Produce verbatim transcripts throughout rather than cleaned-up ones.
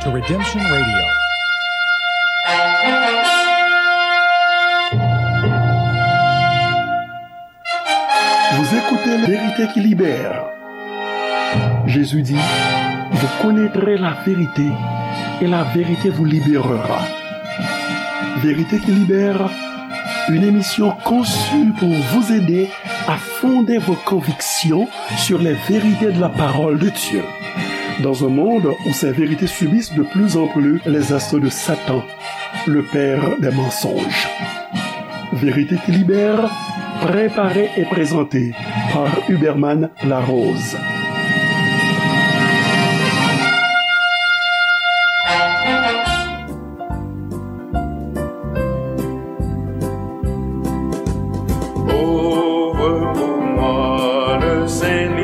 Redemption Radio. Vous écoutez la vérité qui libère. Jésus dit, vous connaîtrez la vérité et la vérité vous libérera. Vérité qui libère, une émission conçue pour vous aider à fonder vos convictions sur les vérités de la parole de Dieu. Dans un monde où ces vérités subissent de plus en plus les assauts de Satan, le père des mensonges. Vérité qui libère, préparée et présentée par Huberman Larose. Ouvre pour moi le Saint-Livre,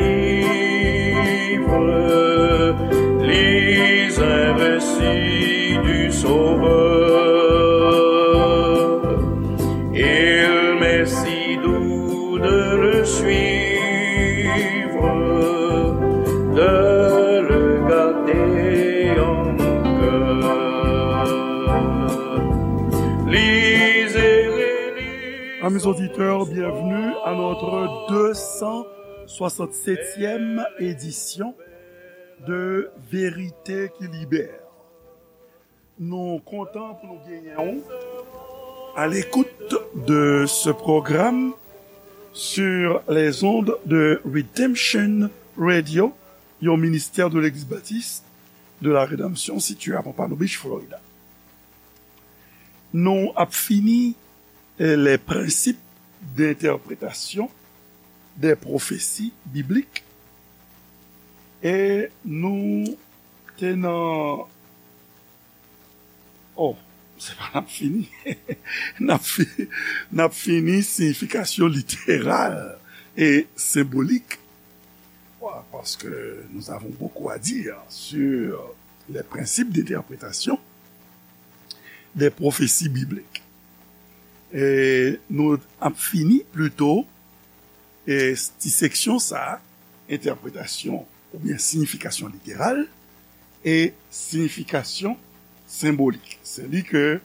lis un récit du Sauveur. Il m'est si doux de le suivre, de le garder en mon cœur. Lisez, relisez. Amis auditeurs, bienvenue à notre deux cent soixante-septième édition de Vérité qui Libère. Nou kontan pou nou genyen w à l'écoute de ce programme sur les ondes de Redemption Radio, yon ministè de Legliz Batis de la Redanmsyon sitiye à Pompano Beach, Florida. Nou ap fini, eh, les principes d'interprétation des prophéties bibliques. E nou te nan, oh, se pa n ap fini. N ap fi-, n ap fini siyifikasyon literal e senbolik. Wa, parce que nous avons beaucoup à dire sur les principes d'interprétation des prophéties bibliques. E nou ap fini plito, e ti seksyon sa a, entèpretasyon oubyen siyifikasyon literal e siyifikasyon senbolik. Se li ke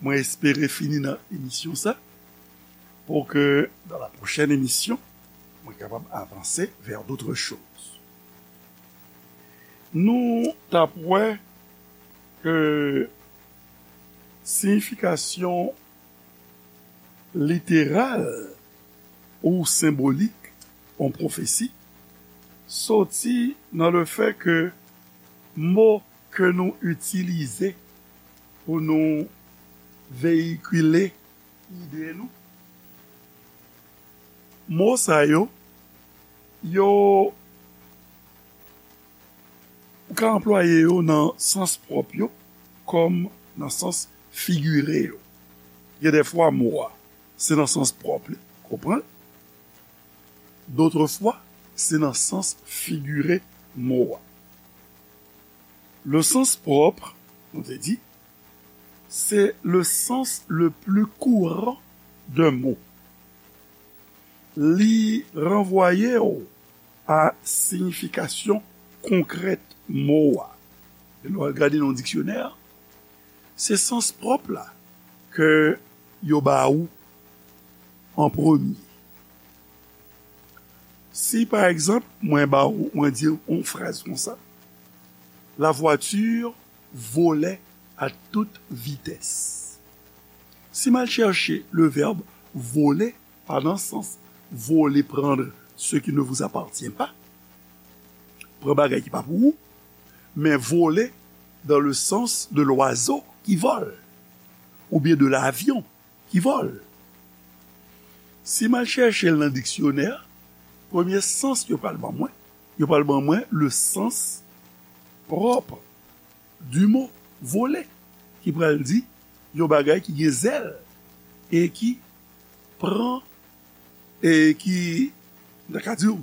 mwen espere fini nan emisyon sa, pour que dans la prochaine émission, mwen kapab avanse vers d'autres choses. Nou t ap wè ke siyifikasyon literal ou senbolik yon pwofesi soti nan le fait que mo ke nou itilize pou nou veyikile ide nou, mo sa yo, yo, ou ka anplwaye yo nan sans pwòp yo, kòm nan sans figire yo. Gen de fwa mo a, se nan sans pwòp li, konprann? D'autres fois, se nan sans figire mo a. Le sens propre, nou te di, c'est le sens le plus courant d'un mot. Li ranvwaye w a siyifikasyon konkrèt mo a. E lè w al gade nan diksyonè, se sans pwòp la ke yo ba ou an premye. Si, pa egzanp, mwen ba ou, mwen di w yon fraz konsa, la voiture volait à toute vitesse. Si m al chèche le verbe voler, pa nan sans voler, prendre ce qui ne vous appartient pas, pran bagay ki pa pou ou, men voler dans le sens de l'oiseau qui vole, oubyen de l'avion qui vole. Si m al chèche l nan diksyonè, premye sans yo pral ban mwen, yo pral ban mwen le sens propre du mot voler, ki pral di yon bagay ki gen zèl e ki pran, e ki, m ta ka di w,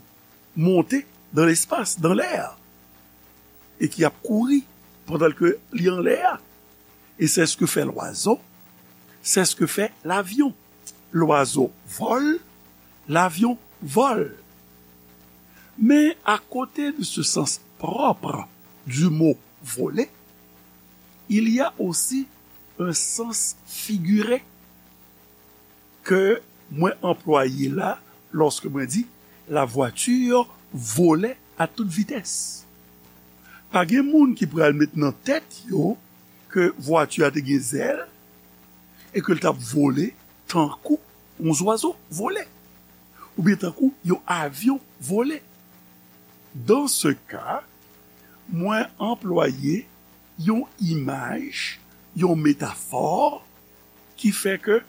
monte dans l'espace, dans l'air, e ki ap kouri pandan ke li anlè a. Et c'est ce que fait l'oiseau, c'est ce que fait l'avion. L'oiseau vole, l'avion vole. Mais à côté de ce sens propre du mot voler, Il y a aussi un sens figuré ke mwen anplwaye la lòske mwen di la voiture volait à toute vitesse. Pa gen moun ki pral met nan tèt yo ke vwati a te gen zèl e ke l t ap vole tankou yon zwazo vole, oubyen tankou yon avyon vole. Dans ce cas, mwen anplwaye yon imaj, yon metafò ki fè ke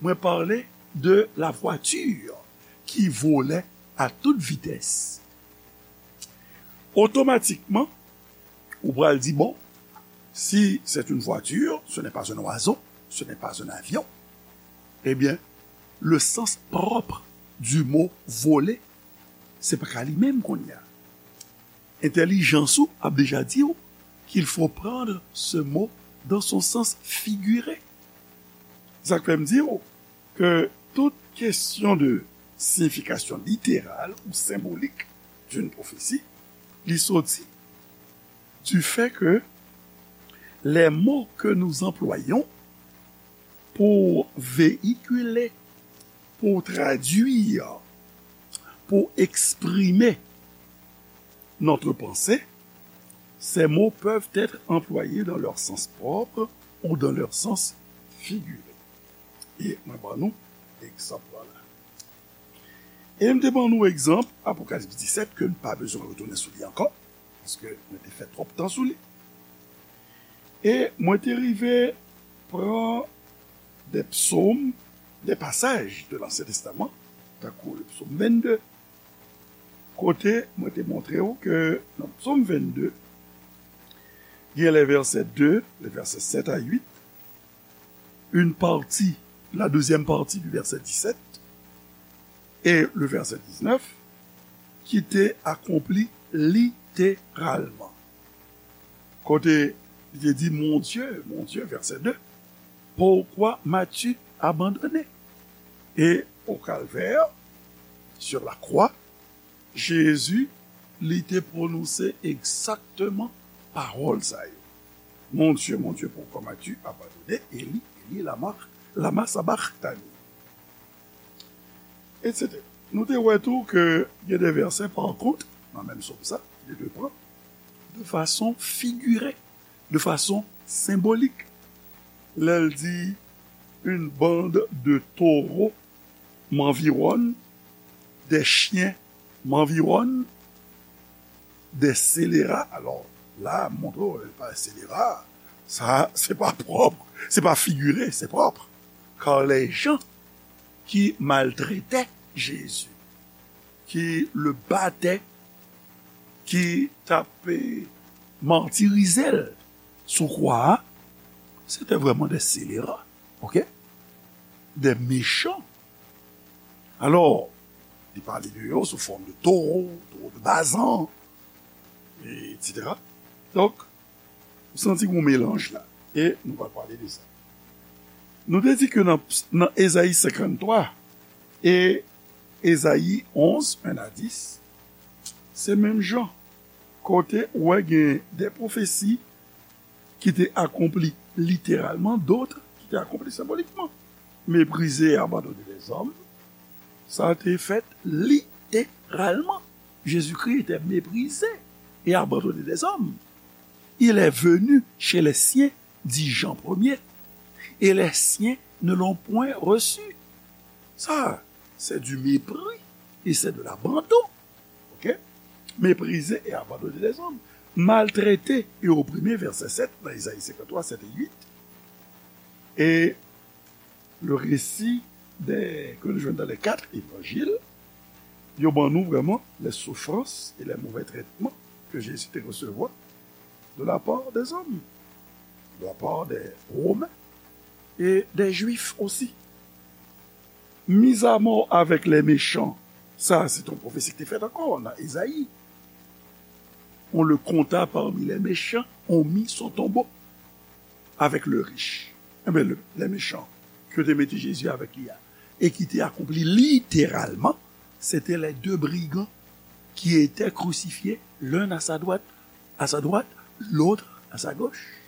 mwen pale de la voiture qui volait à toute vitesse. Otomatikman, ou pral di, bon, si c'est une voiture, ce n'est pas un oiseau, ce n'est pas un avion, eh bien, le sens propre du mot voler, se pa ka li menm kounye a. Entèlijans ou ap deja di w qu'il faut prendre ce mot dans son sens figuré. Sa k fè m di w ke tout kesyon de signification littérale ou symbolique d'une prophétie, li soti du fait que les mots que nous employons pour véhiculer, pour traduire, pour exprimer notre pensée, ces mots peuvent être employés dans leur sens propre ou dans leur sens figuré. E mwen ban nou egzanp la. E m te ban nou egzanp Apokalips disèt ke n pa bezwen retounen sou li ankò, paske mwen te fè twòp tan sou li. E mwen te rive pran de psaumes, des passages de l'Ancien Testament, tankou le psaume vingt-deux, kote mwen te montre w ke nan psaume vingt-deux, gen les versets deux, les versets sept à huit, une partie, la deuxième partie du verset dix-sept et le verset dix-neuf, ki te akonpli literalman. Kote li te di, Mon Dieu, mon Dieu, verset deux, pourquoi m'as-tu abandonné? Et au calvaire, sur la croix, Jezi, li te pwononse egzakteman pawòl sa yo. Mon Dieu, mon Dieu, pourquoi m'as-tu abandonné? Eli, Eli, lama, lama sabachthani? Etsetera. Nou te wè tou ke gen de vèsè, pa kont, nan menm sòm sa, li te pran de fason figire, de fason senbolik. Lè l di, une bande de taureaux m'environne, des chiens m'environnent, des scélérats. Alò, la, montre w, pa scélérat, sa, se pa pwòp, se pa figire, se pwòp. Car les gens qui maltraitaient Jésus, qui le battaient, qui t ap, eh, martirize l sou kwa a, se te vrèman de scélérats, ok? Des méchants. Alò, li pale de yo sou fòm de toro, toro de Bazan, etsetera. Donk, ou santi yon melanj la. E nou pral pale de sa. Nou te di ke nan, nan Ezayi senkanntwa e Ezayi onz, un à dix, se menm jan. Kote ou wè gen de pwofesi ki te akonpli literalman, dòt ki te akonpli senbolikman. Méprisé et abandonné des hommes, sa te fèt literalman. Jésus-Christ était méprisé et abandonné des hommes. Il est venu chez les siens, dit Jean premier, et les siens ne l'ont point reçu. Ça, c'est du mépris et c'est de l'abandon. Ok? Méprisé et abandonné des hommes. Maltraité et opprimé, verset sept, dans Isaïe cinquante-trois, sept et huit. Et le récit des, que nous jouons dans les quatre évangiles, yo ban nou vrèman les souffrances et les mauvais traitements que Jésus te resevwa de la part des hommes, de la part des Romains et des Juifs aussi. Mis à mort avec les méchants, sa se te yon pwofesi ki te fèt ankò nan Ezayi. On le compta parmi les méchants, on mit son tombeau avec le riche. Enben, le, les méchants, ke te mete Jezi avèk li a, e ki te akonpli literalman, se te les deux brigands qui étaient crucifiés, l'un à sa droite, à sa droite, l'autre à sa gauche.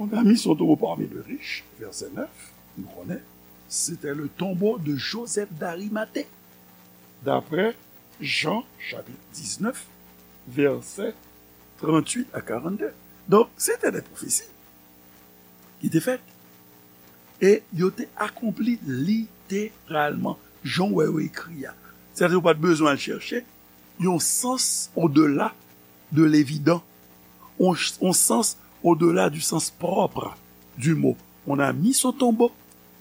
On a mis son tombeau parmi les riches, verset neuf, nou konnen, c'était le tombeau de Joseph d'Arimathée, d'après Jean chapitre dix-neuf, verset trente-huit à quarante-deux. Donk, se te de pwofesi ki te fèt. E yo te akonpli literalman, jan w wè yo ekri a. Sètadi, ou pa t bezwen al chèche yon sans odela de levidan, yon, yon sans odela du sens propre du mot. On a mis son tombeau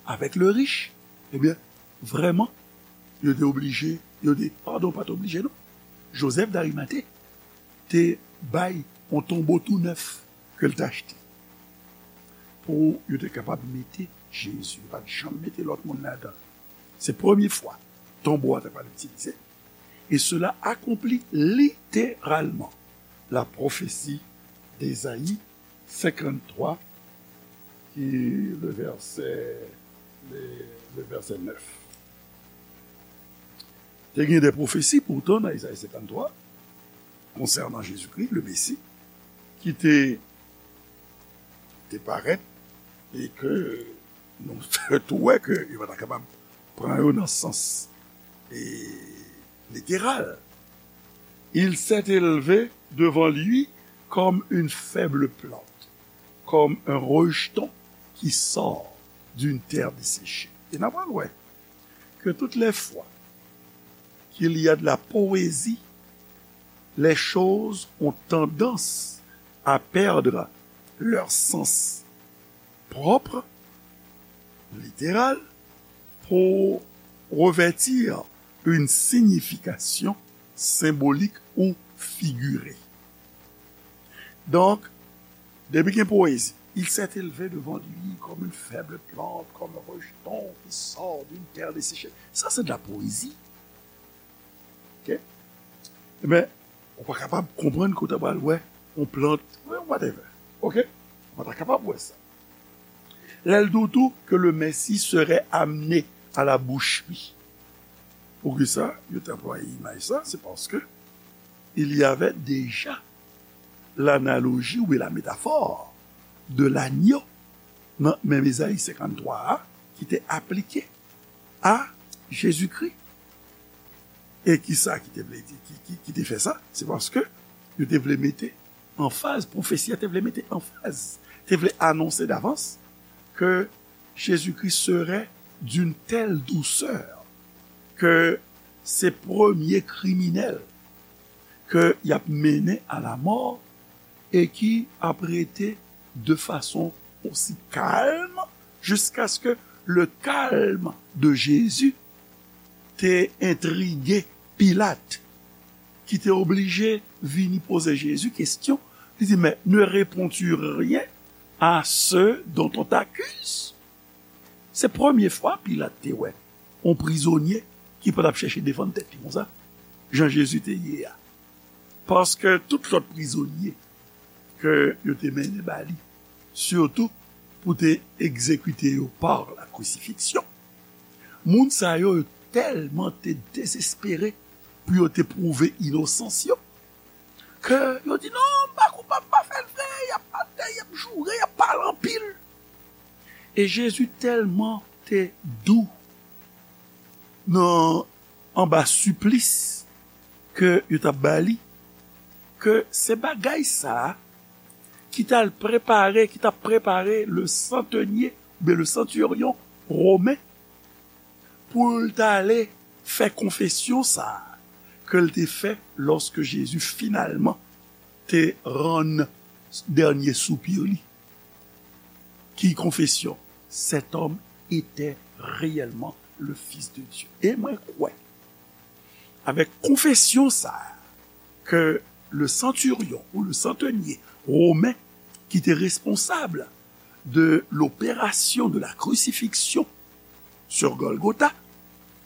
avec le riche. Ebyen, vrèman, yo te oblije, yo te, padon, pa t oblije, non. Joseph d'Arimathée te bay yon tonbo tou nèf ke l te achte pou yo te kapab mete Jezi. Yo pa t janm mete lòt moun ladan l. Se premye fwa tonbo a te pral itilize. Et cela accomplit littéralement la prophétie d'Ésaïe cinquante-trois, qui le verset, le, le verset neuf. Te gen de pwofesi poutan nan Ezayi senkanntwa konsènan Jezikri, le Mesi, ki te, te parèt e ke nou tou wè ke yo pa ta kapab pran yo nan sans e, literal. Il s'est élevé devant lui comme une faible plante, comme un rejeton qui sort d'une terre desséchée. E n ap wè ke toutes les fois qu'il y a de la poésie, les choses ont tendance à perdre leur sens propre, littéral, pour revêtir une signification symbolique ou figurée. Donk, depi gen poésie, il s'est élevé devant lui comme une faible plante, comme un rejeton qui sort d'une terre desséchée. Ça, c'est de la poésie. Ok? Ebyen, ou pa kapab konprann kote w pral wè yon plant, whatever. Ok? Ou pa ta kapab wè sa. Lè l di w tou que le Messie serait amené à la boucherie. Poukisa yo te anplwaye imaj sa? C'est parce que il y avait déjà l'analogie ou la métaphore de l'agneau nan menm Ezayi senkanntwa a ki te aplike a Jezikri. E kisa ki te vle di, ki, ki, ki te fè sa? Se paske yo te vle mete anfaz, pwofesi a te vle mete anfaz, te vle anonse davans ke Jezikri serait d'une telle douceur ke se premye kriminèl ke y ap mennen a la mò e ki ap rete de fason osi kalm jiskaske le calme de Jésus te entrige Pilat, ki te oblije vini poze Jezi kesyon. Li di, mais ne réponds-tu rien à ceux dont on t'accuse? Se premye fwa Pilat te wè yon prizonye ki pa t ap chèche defann tèt li konsa, jan Jezi te ye a. Paske tout lòt prizonye ke yo te mennen ba li, sitou pou te egzekite yo par la crucifixion, moun sa yo, yo tèlman te dezespere pou yo te pwouve inosans yo, ke yo di, "Non, m pa koupab, m pa fè l vre," y ap atè, y ap joure, y ap pale anpil. E Jezi tèlman te dou nan, anba siplis ke yo t ap ba li, ke se bagay sa a ki t al prepare, ki t ap prepare le centenier, oubyen le centurion romen, pou l t ale fè konfesyon sa a ke l te fè lòske Jezi finalman te rann dènye soupi li. Ki konfesyon? Cet homme était réellement le Fils de Dieu. E mwen kwè, avèk konfesyon sa a, ke le centurion ou le centenier romen ki te responsab de l'opération de la crucifixion sur Golgotha,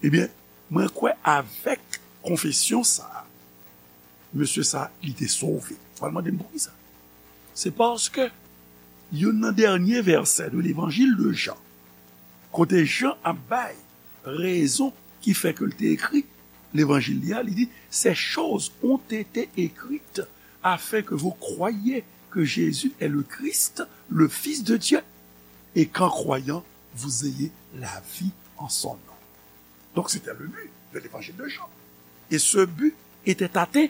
ebyen, mwen kwè avèk konfesyon sa a, mesye sa, li te sove. W al mande m poukisa? Se paske youn nan dènye vèsè de levanjil de Jan, kote Jan ap bay rezon ki fè ke l te ekri levanjil li a, li di, ces choses ont été écrites afin que vous croyiez que Jésus est le Christ, le Fils de Dieu, et qu'en croyant, vous ayez la vie en son nom. Donc c'était le but de l'évangile de Jean. Et ce but était atteint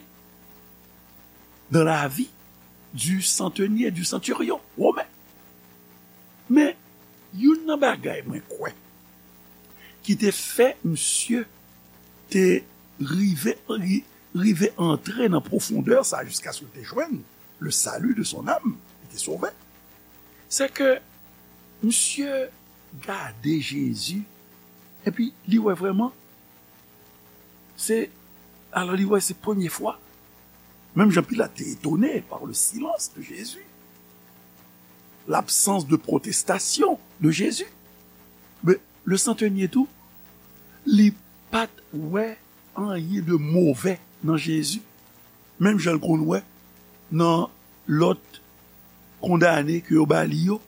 dans la vie du centenier, du centurion romain. Men, youn nan bagay mwen kwè ki te fè misye te rive, ri- rive antre nan pwofondè sa jiskaske l te jwenn le salut de son âme, li te sove, se ke misye gade Jezi, epi li wè vrèman, se, alò li wè se premye fwa. Menm jan Pilat te etone par le silence de Jésus, l'absence de protestation de Jésus. Men le centenier tou, li pa t wè anyen de move nan Jezi. Menm jan l konn wè nan lòt kondane ke yo ba li yo,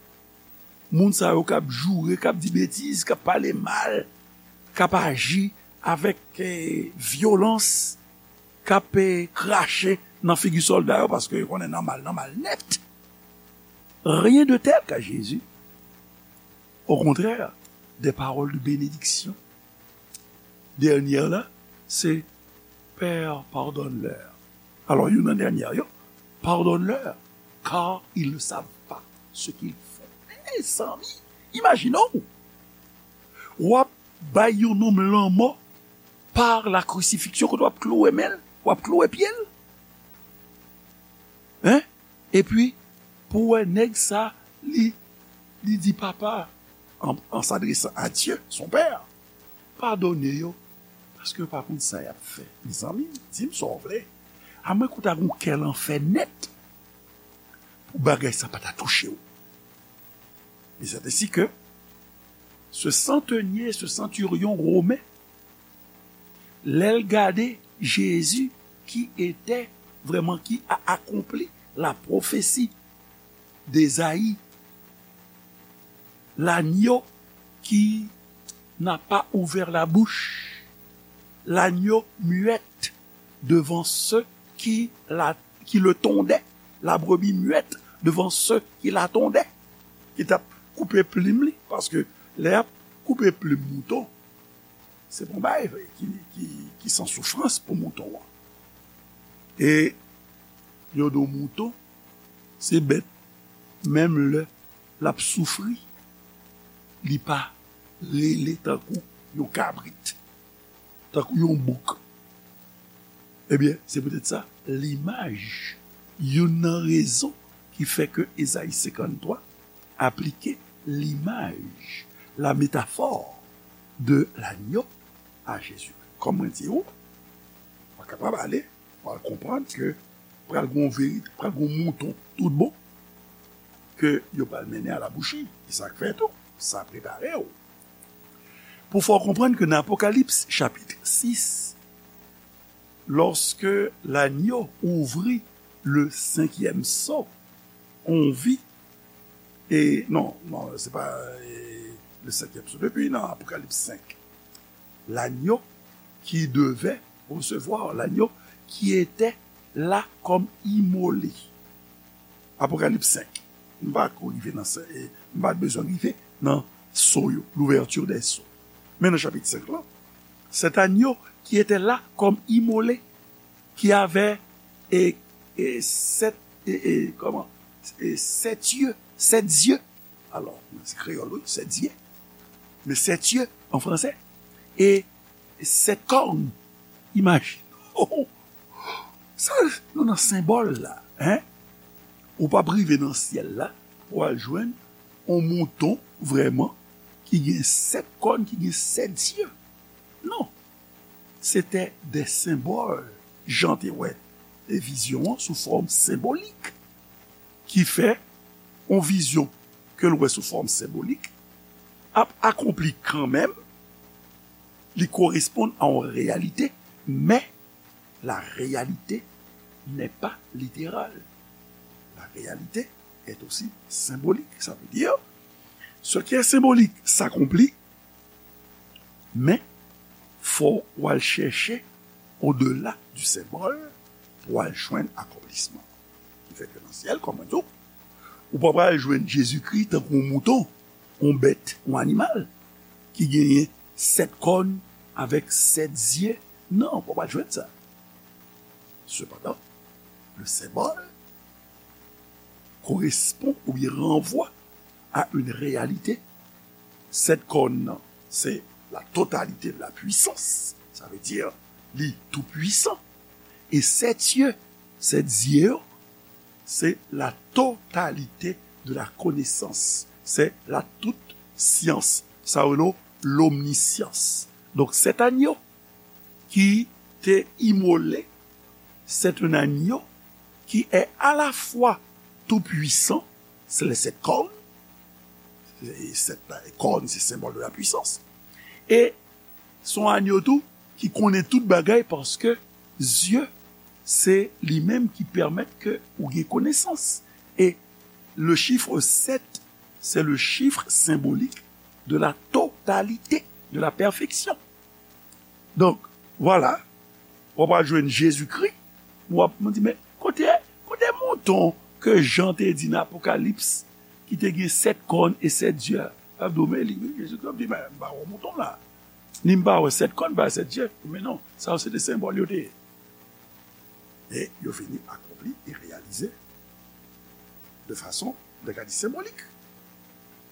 moun sa yo k ap joure, k ap di betiz, k ap pale mal, k ap aji avèk eh, vyolans, k ap eh, krache nan figi sòlda yo, paske yo konnen nan mal, nan mal nèt. Rien de tel ka Jezi. Au contraire, des paroles de bénédiction. Dènyè la, se Père, pardonne-leur. Alò, youn nan dènyè yo, pardonne-leur, car ils ne savent pas ce qu'ils font. Mezanmi, imajine w, w ap bay yon nonm lanmò par la crucifixion, kote w ap klouwe men l, w ap klouwe pye l. Hein? Epi, pou wè nèg sa, li, li di papa, en, en s'adressant à Dieu, son père, padone yo, paske yo pa konn sa y ap fè. Mezanmi, di m sa w vle. A mwen kou ta gon kè lanfè nèt pou bagay sa pa ta touche w. Et c'est ainsi que ce centenier, ce centurion romain, lè l gade Jezi ki etè vrèman ki a akonpli la pwofesi d'Ezayi, l'agneau qui n'a pas ouvert la bouche, l'agneau muet devant ceux qui, la, qui le tondaient, la brebis muette devant ceux qui la tondaient, ki t ap koupe plim li, paske lè y ap koupe plim mouton, se pa yon bagay ki, ki, ki san soufrans pou mouton an. E yo di w mouton, se bèt, menm lè l ap soufri, li pa rele tankou yon kabrit, tankou yon bouk. Ebyen, se poutèt sa, limaj, youn nan rezon ki fè ke Ezayi senkanntwa aplike limaj, la métaphore de l'agneau à Jésus. Kòm mwen di w, w kapab ale, w al konprann ke pral gon verite, pral gon mouton tout bon, ke yo pral mennen a la bouchi. E sa k fè tou, sa prepare w. Pou fè w konprann ke nan Apokalips chapit sis, lorsque l'agneau ouvrit le cinquième sceau, on vit, e non, non, se pa e, le cinquième sceau, depi nan Apokalips senk, l'agneau qui devait recevoir, l'agneau qui était là comme immolé. Apokalips senk. M pa ko rive nan, m pa bezwen rive nan sceau yo, l'ouverture des sceaux. Men nan chapit senk lan, cet agneau qui était là comme immolé, qui avait e, e, sept, e, e, kòman? E, sept yeux, sept yeux. Alò, se kreyòl, wi, sept yeux. Men sept yeux an fransè. E sept cornes. Imajine w. Sa, nou nan senbòl la, hein? Ou p ap rive nan syèl la pou w al jwenn yon mouton vrèman ki gen sèt kòn, ki gen sèt zye. Non. Se te de senbòl. Jan te wè e vizyon an sou fòm senbolik. Ki fè yon vizyon ke l wè sou fòm senbolik ap akonpli kanmenm, li koresponn a yon reyalite, men la réalité n'est pas littérale. La réalité est aussi symbolique. Ça veut dire, ce qui est symbolique s'accomplit, men fò w al chèche au-delà du symbole pou w al jwenn akonplisman. Li fèt yo nan syèl, kòm mwen di w. Ou pa pral jwenn Jezikri tankou yon mouton, yon bèt, yon animal ki genyen sèt kòn avèk sèt zye. Non, ou pa pral jwenn sa. Sepandan, le symbole correspond ou bien renvoie à une réalité. Sèt kòn nan, se la totalité de la puissance. Sa vle di, li tou pwisan. E sèt zye, sèt zye yo, se la totalité de la connaissance. Se la tout science. Sa yo rele lomnisyans. Donk, sèt anyo ki te imole, c'est un agneau qui est à la fois tout puissant, se le sèt kòn, e sèt kòn se senbòl de la pwisans, e se yon agneau tou ki konnen tout bagay, paske zye se li menm ki pèmèt ke ou gen konesans. E le chiffre sept, c'est le chiffre symbolique de la totalité, de la perfection. Donk, vwala, w ap al jwenn Jezikri, w ap di, men kote, kote mouton ke Jan te di nan Apokalips, ki te gen sèt kòn e sèt zye a? L ap di w, men li, wi, Jezikri ap di, men m pa wè mouton la. Ni m pa wè sèt kòn, pa sèt zye. Men non, sa yo se de senbòl yo te ye. E yo fini akonpli e reyalize de fason, de ka di, senbolik.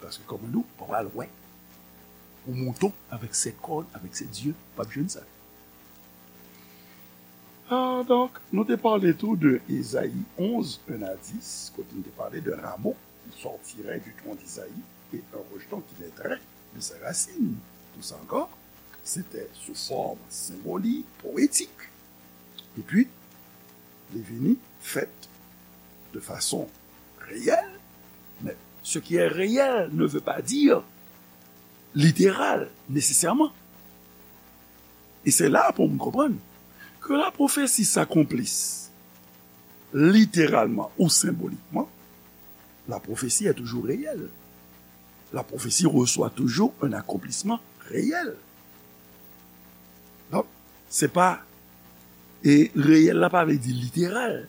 Paske, kòm nou, w ap al wè yon mouton avèk sèt kòn, avèk sèt zye, w ap jwenn sa. Ah, donk, nou te pale tou de Ezayi onz, un à dix, kote nou te pale de rameau qui sortirait du tronc d'Isaïe et un rejeton qui naîtrait de ses racines. Tout sa ankò, se te sou fòm senbolik, powetik. Epi, li vini fèt de fason reyèl, men ce qui est réel ne veut pas dire littéral, nécessairement. E se la pou moun konprann que la prophétie s'accomplisse littéralement ou symboliquement, la prophétie est toujours réelle. La prophétie reçoit toujours un accomplissement réel. Donk, se pa, e reyèl la pa vle di literal.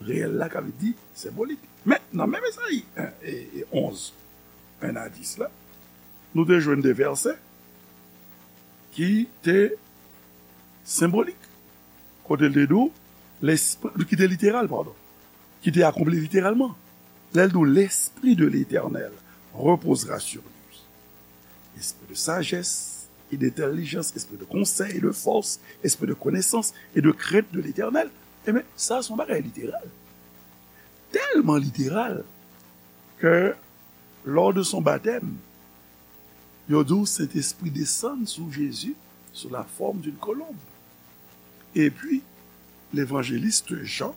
Reyèl la ka vle di senbolik. Men, nan menm Ezayi en, e, e onz, un à dix la, nou te jwenn de vèsè ki te senbolik. Kote l te di w, lespri, ki te literal, padon, ki te akonpli literalman. Lè l di w, l'Esprit de l'Éternel reposera sur lui. Esprit de sagesse et d'intelligence, esprit de conseil et de force, esprit de connaissance et de crainte de l'Éternel. Ebyen, sa se yon bagay literal. Tèlman literal ke lors de son baptême, yo di w Sentespri desann sou Jezi sou la forme d'une colombe. Epi, levanjelis Jan,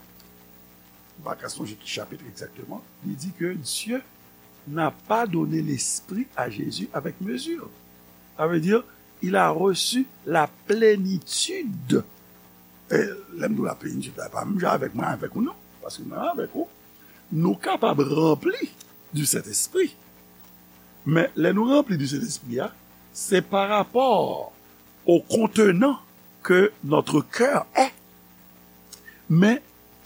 m pa ka sonje ki chapit egzakteman, li di ke Dieu n'a pas donné l'esprit à Jésus avec mesure. Sa vle di, il a reçu la plénitude. E lè m di w la plenitid la, pa menm jan avèk mwen, avèk ou non, paske mwen avèk ou, nou kapab ranpli du Saint-Esprit. Men lè nou ranpli du Saint-Esprit a, se pa rapò au contenant que notre cœur est. Men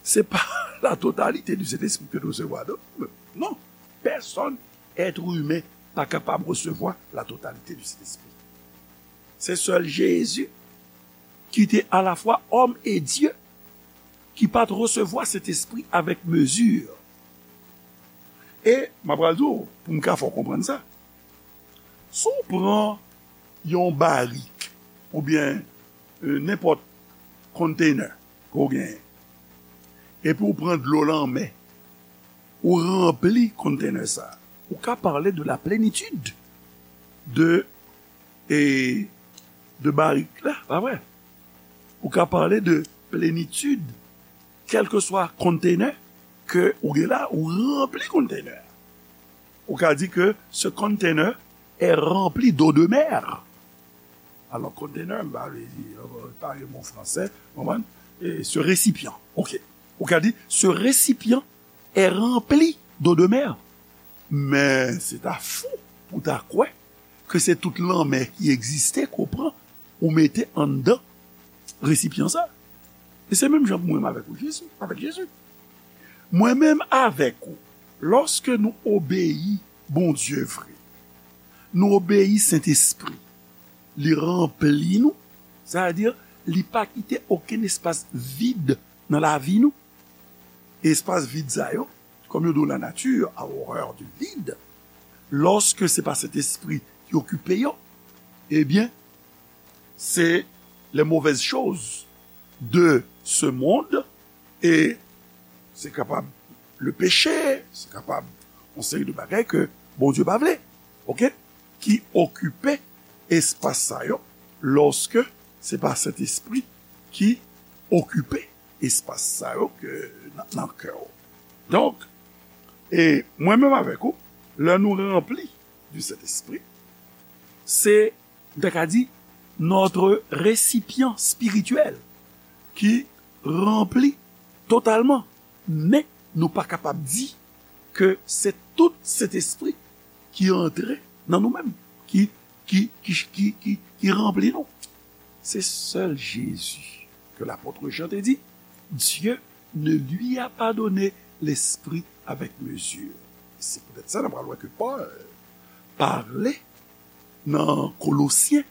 se pa la totalité du Saint-Esprit ke nou resevwa. Non, non. Pèsonn, èt imen, pa kapab resevwa la totalité du Saint-Esprit. Se sèl Jezi ki te alafwa òm e Dye, ki pa t resevwa Sentespri avèk mezi. E m ap pral di w, pou m ka fè w konprann sa, si w pran yon barik oubyen, e, nenpòt container ke w genyen, epi w pran dlo lanmè, ou ranpli container sa, ou ka pale de la plenitid de, e, de barik la, pa vre? Ou ka pale de plenitid, kèlkeswa container ke ou gen la, ou ranpli container. Ou ka di ke ce container est rempli d'eau de mer. Alò, container, m pa vle di, euh, pa yon mo fransè, konprann? E ce récipient, ok. Ou ka di, ce récipient est rempli d'eau de mer. Men se ta fou pou ta kwè ke se tout lanmè ki egziste ke w pran, ou mete anndan resipyan sa. E se menm jan pou mwen avèk ou, Jezi, avèk Jezi. Mwen menm avèk ou, lòske nou obeyi Bondye vre, nou obeyi Sentespri, li ranpli nou, sètadi li pa kite okenn espas vid nan lavi nou. Espas vid sa yo, comme nous dit la nature a horreur du vide, lorsque c'est pas Saint-Esprit qui occupe yo, eh bien, c'est les mauvaises choses de ce monde et c'est capable le péché, c'est capable une série de bagages que Bondye pa vle, ok, qui occupe espace ça yo, lorsque c'est pas Saint-Esprit qui occupe espas sa yo ke nan, nan kè w. Donk, e mwen menm avèk ou, lè nou ranpli du Saint-Esprit, se, m ta ka di, notre récipient spirituel ki ranpli totalman. Men nou pa kapab di ke se tout Sentespri ki antre nan nou menm, ki, ki, ki, ki, ki, ki ranpli nou. Se sèl Jezi ke lapot Jan te di, Dieu ne lui a pas donné l'esprit avec mesure. Se poutèt sa nou pral wè ke Pòl pale nan Kolosyen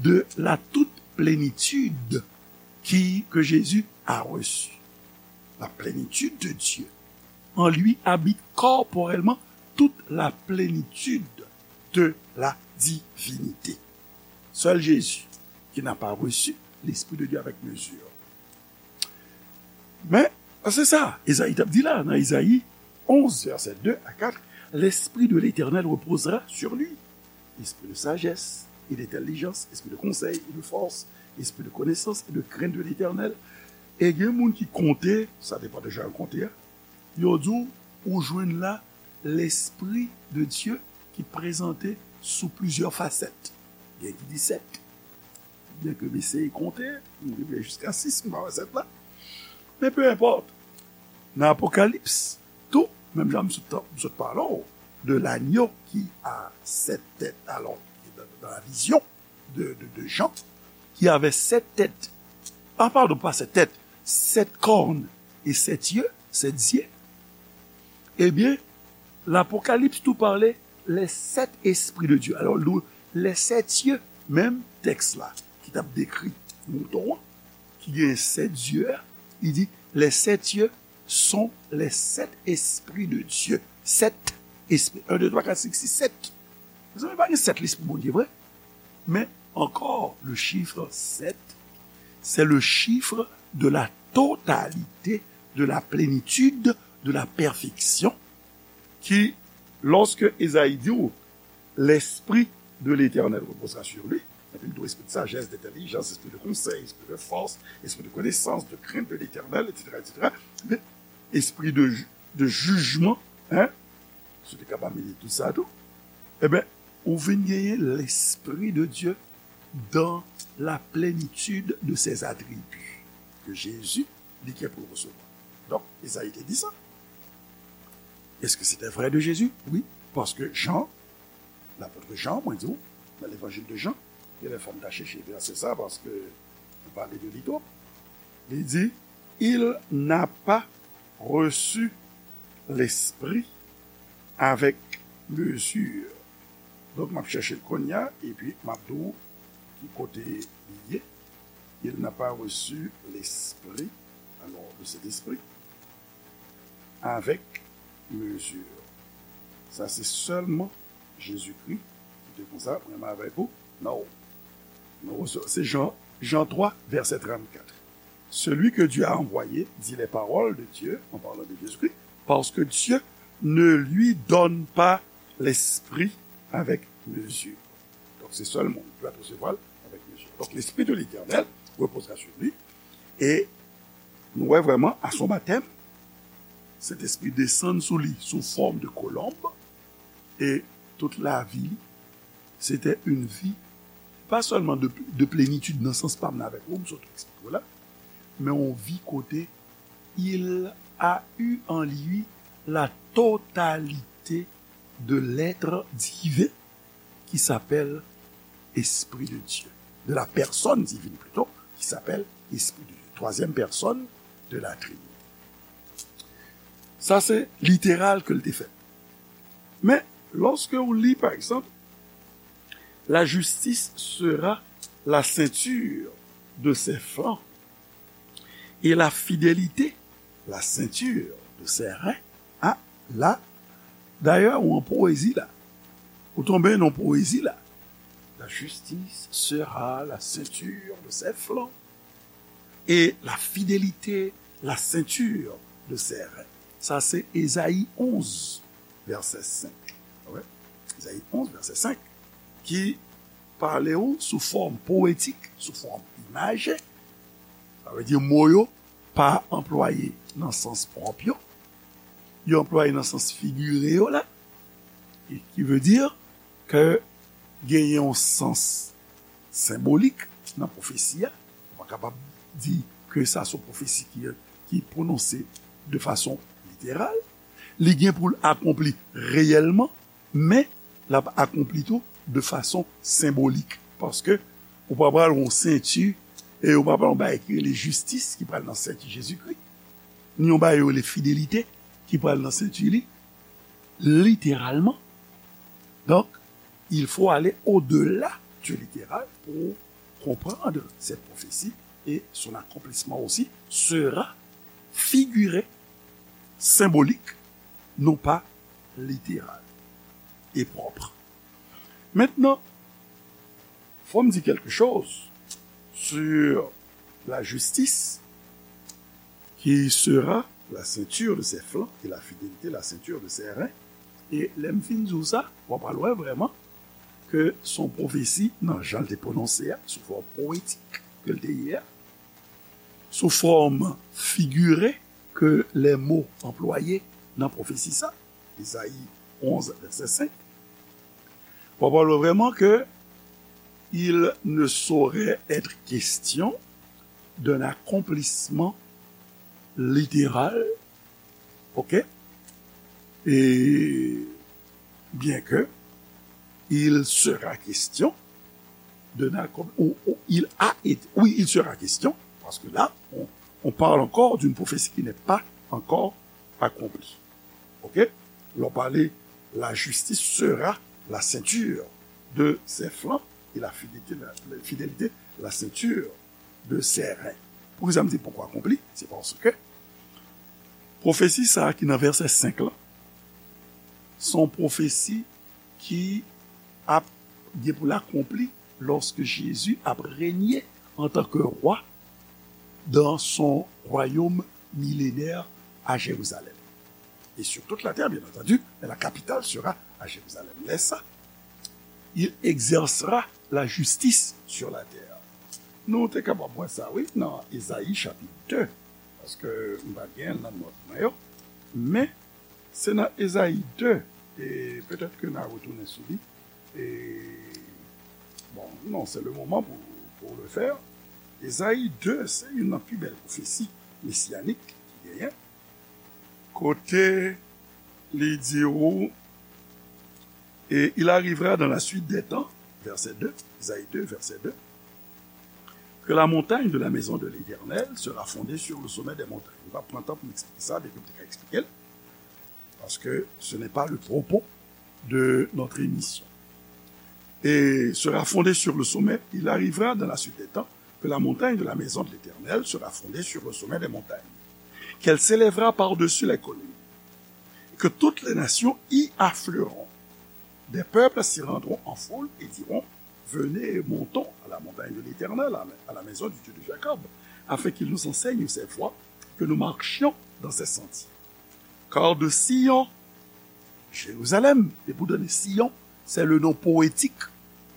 de la toute plénitude qui, que Jésus a reçue. La plénitude de Dieu. En lui habite corporellement toute la plénitude de la divinité. Seul Jésus qui n'a pas reçu l'Esprit de Dieu avec mesure. Men, se sa, Ezayi t ap di la, nan Ezayi onze, vèsè de a kat, L'Esprit de l'Éternel reposera sur lui. Esprit de sagesse et d'intelligence, esprit de conseil et de force, esprit de connaissance et de crainte de l'Éternel. E gen moun ki konte, sa depann de jan yo konte a, yo di w, ou jwenn la Lespri de Dye ki prezante sou plizyè fasèt. Gen ki di sèt. Byenke m eseye konte, m rive jiska sis, m pa wè sèt la. Men peu importe. Nan Apokalips, tou, menm jan m sot, m sot pale w de l'agneau qui a sept têtes, alors, dans, dans la vision de, de, de Jean, qui avait sept têtes. Ah, pardon, pas sept têtes, sept cornes et sept yeux, sept yeux. Ebyen, Lapokalips tou pale les sept esprits de Dieu. Alors, nou, les sept yeux, menm tèks la, ki t ap dekri mouton an, ki gen sèt zye a, li di, les sept yeux sont les sept esprits de Dieu. Sèt espri. Un, deux, trois, quatre, cinq, six, sept. Mezanmi, pa gen sèt lespri Bondye vre. Men ankò, le chiffre sept, c'est le chiffre de la totalité, de la plénitude, de la perfection, ki, lorsque Ezayi di w, L'Esprit de l'Éternel reposera sur lui, epi l di w espri de sajès, de entèlijans, espri de konsèy, espri de fòs, espri de konesans, de krent de l'Éternel, et cetera, et cetera. Men, espri de, de jijman, hein, si w te kapab mete tout sa tou, e ben, ou vin genyen l'Esprit de Dieu dans la plénitude de ses attributs que Jésus, li gen pou resevwa. Donk, Ezayi te di sa. Est-ce que c'était vrai de Jésus? Oui, parce que Jean, l'apôtre Jean, mwen di w, nan l'évangile de Jean, gen lè fò m ta chèche vèsè sa, paske nou pale de li twòp. Li di, il n'a pas reçu l'Esprit avec mesure. Donk, m ap chèche l kounye a, epi m ap di w ki kote li ye. Il n'a pas reçu l'Esprit, alors, de cet Esprit, avec mesure. Sa se sèlman Jezikri ki te konsa, mwen menm avèk ou, non. Nou resevwa, se Jan, Jan twa, vèsè trannkat. Celui que Dieu a envoyé dit les paroles de Dieu, en parlant de Jésus-Christ, parce que Dieu ne lui donne pas l'esprit avec mesure. Donk, se sèl moun ki va resevwa l avèk mezi. Donk, l'Esprit de l'Éternel reposera sur lui. E nou wè vrèman, à son baptême, Sentespri desann sou li sou fòm de kolonb. E tout lavi li, se te yon vi, pa sèlman de, de plenitid nan sans pa m nan avèk ou, m sot eksplike w la, men yon vi kote il a eu en lui la totalité de l'être divin qui s'appelle Esprit de Dieu, de la personne divine plutôt, qui s'appelle Esprit de Dieu, troisième personne de la Trinité. Sa se literal ke l te fè. Men, lòske ou li, pa egzanp, la justice sera la ceinture de ses flancs et la fidélité la ceinture de ses reins. A, la, dayè, ou an powezi la. Ou tonbe nan powezi la. La justice sera la ceinture de ses flancs et la fidélité la ceinture de ses reins. Sa se Ezayi onz, vèsè senk. Wè. Ezayi onz, vèsè senk, ki pale ou sou fòm powetik, sou fòm imaje. Sa vle di mo yo pa anplwaye nan sans pwòp yo. Yo anplwaye nan sans figire yo la. E ki vle di ke genyen yon sans senbolik nan pwofesi a. Ou pa kapab di ke sa se yon pwofesi ki, ki pwononse de fason literal. Li gen pou l akonpli reyèlman, men l ap akonpli tou de fason senbolik. Paske ou pa pral yon senti e ou pa pral yon bagay ki rele jistis ki pral nan senti Jezikri, ni yon bagay yo rele fidelite ki pral nan senti li, literalman. Donc, il faut aller au-delà du littéral pour comprendre cette prophétie et son accomplissement aussi sera figuré, symbolique, non pas littéral et propre. Maintenant, faut me dire quelque chose sur la justice qui sera la ceinture de ses flancs et la fidélité la ceinture de ses reins. E lè m fin di w sa, w ap al wè vrèman ke se yon pwofesi nan jan l te pwononse a, sou fòm powetik ke l te ye a, sou fòm figire ke lè mo anplwaye nan pwofesi sa, Ezayi onz, vèsè senk, w ap wè vrèman ke il ne saurait être question d'un accomplissement littéral, ok? Et bien que il sera question d'un accom-, ou, ou il a été, oui, il sera question, parce que là, on, on parle encore d'une prophétie qui n'est pas encore accomplie. Ok? Lè w pale, la justice sera la ceinture de ses flancs et la fidélité, la, la fidélité, la ceinture de ses reins. Poukisa m di poko akonpli? Se paske pwofesi sa a ki nan vèsè senk lan, se yon pwofesi ki ap gen pou l akonpli lòske Jezi ap renye antanke wa dans son royaume millénaire à Jérusalem. Et sur toute la terre, bien entendu, mais la capitale sera à Jérusalem. Lè sa, il exercera la justice sur la terre. Nou te kapab wè sa, wi, nan Ezayi chapit de, paske m pa gen l nan nòt mwen yo, men se nan Ezayi de, e petèt ke n a retounen sou li, e, bon, non, c'est le moment pour, pour le faire. Ezayi de, se youn nan pi bèl pwofesi mesiyanik ki genyen, kote li di ou, et il arrivera dans la suite des temps, verset deux, Ezayi de, verset deux, que la montagne de la maison de l'Éternel sera fondée sur le sommet des montagnes. M pa pran tan pou m eksplike sa, men ke m te ka eksplike l, paske ce n'est pas le propos de notre émission. Et sera fondée sur le sommet, il arrivera dans la suite des temps que la montagne de la maison de l'Éternel sera fondée sur le sommet des montagnes, qu'elle s'élèvera par-dessus les collines, et que toutes les nations y afflueront. Des peuples s'y rendront en foule et diront, venez, montons à la montagne de l'Éternel, à la maison du Dieu de Jacob, afin qu'il nous enseigne ses voies, que nous marchions dans ses sentiers. Car de Sion, Jérusalem, et pour donner Sion, c'est le nom poétique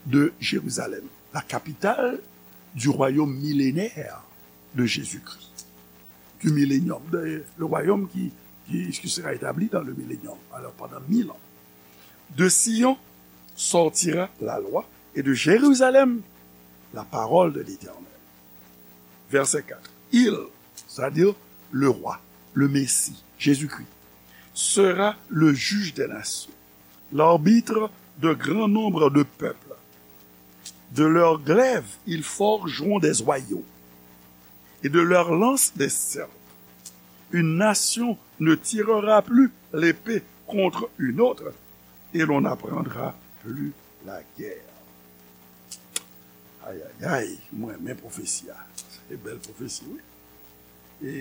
de Jérusalem, la capitale du royaume millénaire de Jésus-Christ, du millénium, de, le royaume qui, qui, qui sera établi dans le millénium, alors pendant mille ans. De Sion sortira la loi, et de Jérusalem la parole de l'Éternel. Verset quatre. Il, c'est-à-dire le roi, le Messie, Jésus-Christ, sera le juge des nations, l'arbitre de grand nombre de peuples. De leurs glaives, ils forgeront des joyaux, et de leurs lances des sceptres. Une nation ne tirera plus l'épée contre une autre, et l'on n'apprendra plus la guerre. Ay, ay, ay, mwen renmen pwofesi a. Se bèl pwofesi, wi. E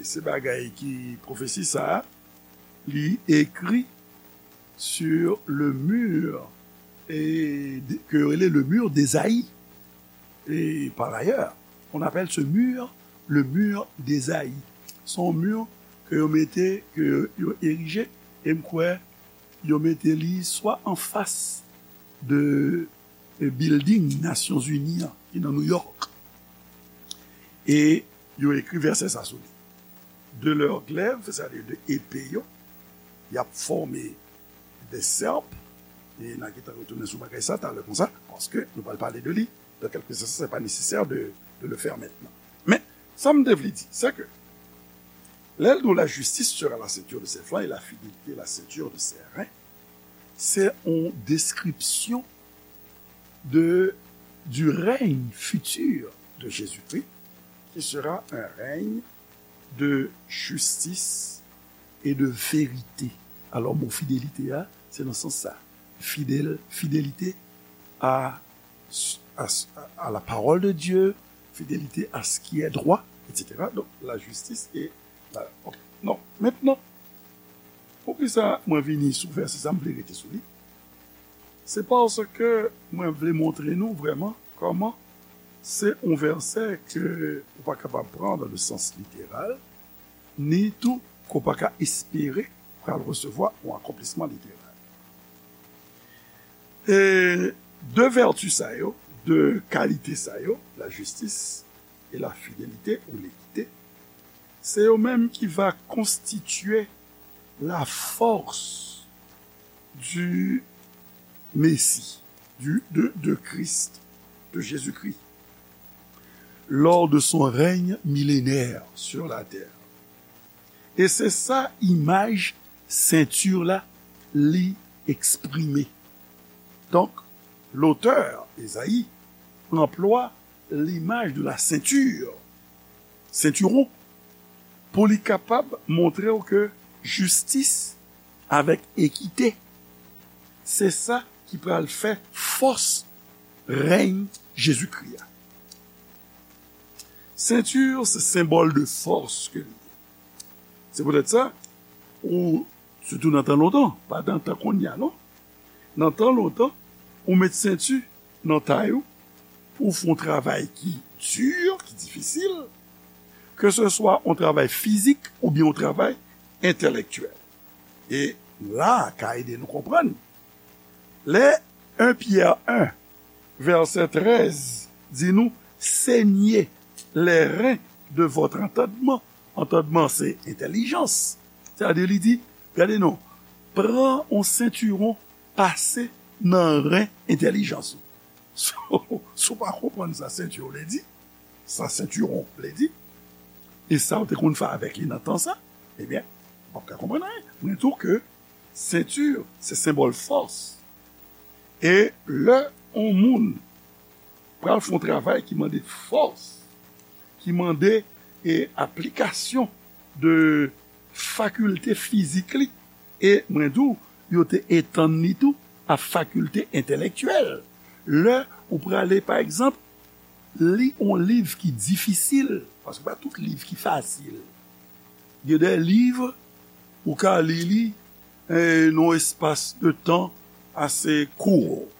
se bagay ki, pwofesi sa a, li ekri sur le mur, e, de- ke yo rele le mur d'Ésaïe. Et par ailleurs, on appelle ce mur le mur d'Ésaïe. Se yon mur ke yo mete, ke yo erije, e m kwè yo mete li swa anfas de, de building Nasyonzini an, ki nan New York. E yo ekri vèsè sa sou li. De leurs glaives, sètadi de epe yo, y ap fòme des serpes, e n a gentan retounen sou bagay sa talè konsa, paske nou pral pale de li dans quelques instants, c'est pas nécessaire de, de le faire maintenant. Men, sa m te vle di, c'est que lè l di la justice sera la ceinture de ses flancs et la fidélité la ceinture de ses reins, c'est une description de, du règne futur de Jésus-Christ, qui sera un règne de justice et de vérité. Alò, mo fidelite a, se nan sans sa. Fidèle, fidélité à, à, à la parole de Dieu, fidélité à ce qui est droit, et cetera. Donc, la justice et la... Ok. Non, maintenant, poukisa mwen vini sou vèsè sa, m vle rete sou li? Se paske mwen vle montre nou vrèman kòman se yon vèsè ke ou pa kapab pran dans le sens littéral, ni tou ke w pa ka espere pral resevwa yon akonplisman literal. E de vèti sa yo, de kalite sa yo, la jistis e la fidelite ou lekite, se yo menm ki va konstitye la force du Messie, du, de, de Christ, de Jésus-Christ, lors de son règne millénaire sur la terre. E se sa imaj senti la li eksprime. Donk, lotè Ezayi anplwa limaj de la senti, sentiwon, pou li kapab montre w ke jistis avèk ekite, se sa ki pral fè fòs rèy Jezikri a. Senti se senbòl de fòs ke li ye. Se poutèt sa, ou, sitou nan tan lontan, pa nan tan kounye a, non. Nan tan lontan, ou met senti nan tay ou pou w fè yon travay ki di, ki difisil, ke se swa yon travay fizik oubyen yon travay entèlektyèl. E la ka ede nou konprann. Lè en Pyè en, vèsè trèz, di nou, saignez les reins de votre entendement. Entendement, se entèlijans. Sètadi, li di, gade non, pran yon sentiwon, pase nan ren entèlijans ou. Si w, si w pa konprann sa sentiwon vle di, sa sentiwon vle di, e sa w te konn fè avèk li nan tan sa, ebyen, w p ap ka konprann anyen. Mwen tou ke senti, se senbòl fòs. E lè yon moun pral fè yon travay ki mande fòs, ki mande, e, aplikasyon de fakilte fizik li, e mwen di w, yo te etann li tou a fakilte entèlektyèl. Lè ou prale, pa egzanp, li yon liv ki difisil, paske pa tout liv ki fasil. Gen de liv ou ka li li, e, nan yon espas de tan ase kout.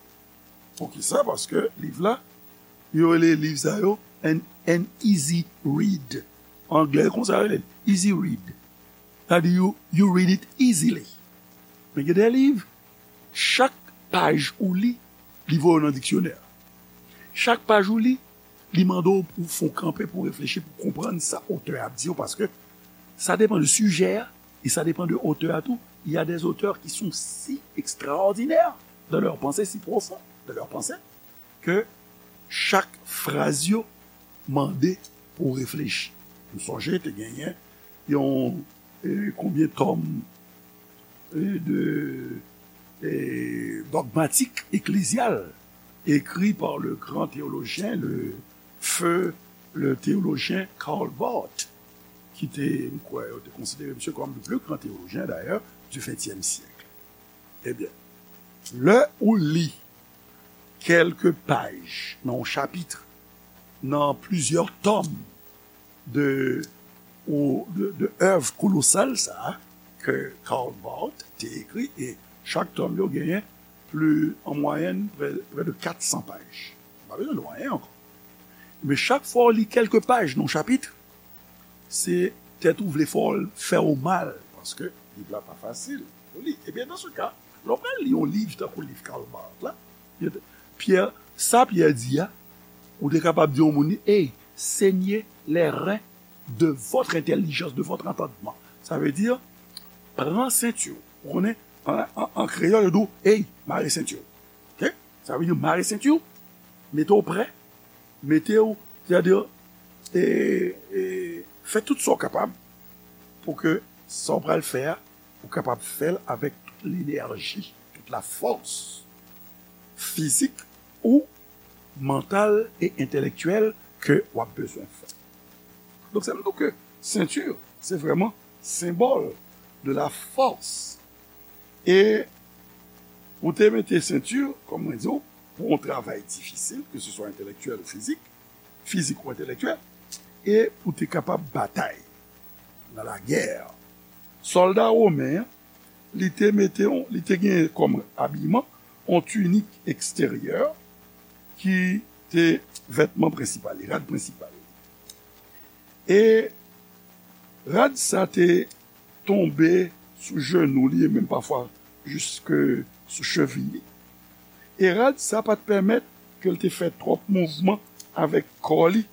Poukisa? Paske liv la, yo rele liv sa yo an, an easy read. Anglè konsa yo rele l, easy read. Sètadi, you, you read it easily. Men gen de liv, chak paj ou li, li voye w nan diksyonè. Chak paj ou li, li mande w pou w fè w kanpe, pou w reflechi, pou w konprann sa otè a ap di w, paske sa depann de sijè a, e sa depann de otè a tou. Il y a des auteurs qui sont si extraordinaires dans leur pensée, si profonds dans leur pensée, ke chak fraz yo mande pou w reflechi. M sonje te genyen yon, e, konbyen tòm, e, de, e, dogmatik eklezyal, écrit par le grand théologien, le feu, le théologien Karl Barth. ki te, m kwè, yo te konsidere misye kòm le plus grand théologien, d'ailleurs, du vingtième siècle. Ebyen, lè ou li kèlke paj nan yon chapit, nan plizyè tòm de, ou, de, de èv kolosal sa a ke Karl Barth te ekri, e chak tòm yo genyen pli, an mwayèn, prè, prè de kat san paj. Pa bezwen lwen ankò. Men chak fwa w li kèlke paj nan yon chapit, se tèt ou vle fè w, fè w mal, paske liv la pa fasil pou li. Ebyen, dans ce cas, lè w pral li yon liv tankou liv Karl Barth la, Pyè, sa Pyè di a, ou te kapab di yon moun, hey, saignez les reins de votre intelligence, de votre entendement. Sa vle di, pran senti w. Ou konnen, an, an, an kreyòl, yo di w, hey, mare senti w. Ok? Sa vle di, mare senti w, mete w prè, mete w, sètadi, e, e, fè tout sa w kapab pou ke sa w pral fè a, ou kapab fè l avèk tout lenèji, tout la fòs fizik ou mantal e entèlektyèl ke w ap bezwen fè. Donk, sa vle di ke senti, se vrèman senbòl de la fòs. E ou te mete senti, kòm mwen di w, pou yon travay difisil, ke se swa entèlektyèl ou fizik, fizik ou entèlektyèl, e pou te kapab batay nan lagè. Sòlda women an, li te mete yon, li te gen kòm abiman yon tinik eksteryè ki te vètman prensipal li, rad prensipal li. E rad sa te tonbe sou jenou li, e menm pafwa jiske sou cheviy li. E rad sa pa t pèmèt ke l te fè twòp mouvman avèk kò li,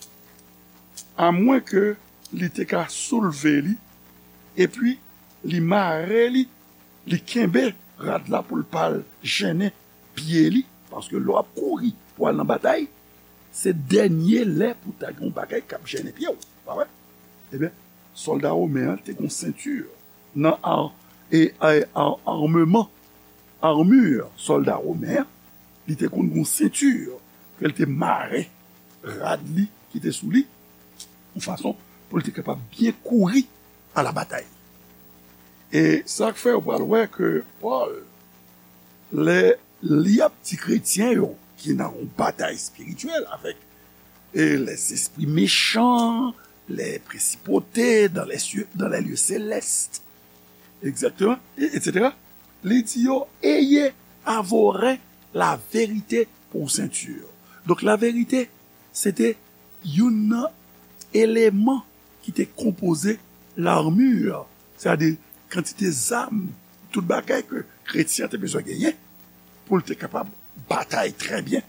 amwen ke li te ka soulve li, epi li mare li, li kenbe rad la pou l pa al jennen pye li, paske lè w ap kouri pou al nan batay, se dènye lè pou ta gen yon bagay k ap jennen pye w, pa vre? Ebyen, sòlda women an te gen yon senti nan ar-, e, e, ar-, armeman, armure sòlda women an, li te konn gen yon senti ke l te mare rad li ki te sou li, yon fason pou l te kapab byen kouri a la batay. E sa k fè ou pral wè ke Pòl, lè li ap di kretyen yo ki nan yon batay espirityèl avèk, e, les esprits méchants, les principautés dans les cieux, dans les lieux célestes, exactement, et, et cetera, li di yo, ayez à vos reins la vérité pour ceinture. Donk, la vérité, se te youn nan eleman ki te konpoze l'armure, sètadi kantite zam, tout bagay ke kretyen an te bezwen genyen pou l te kapab batay trè byen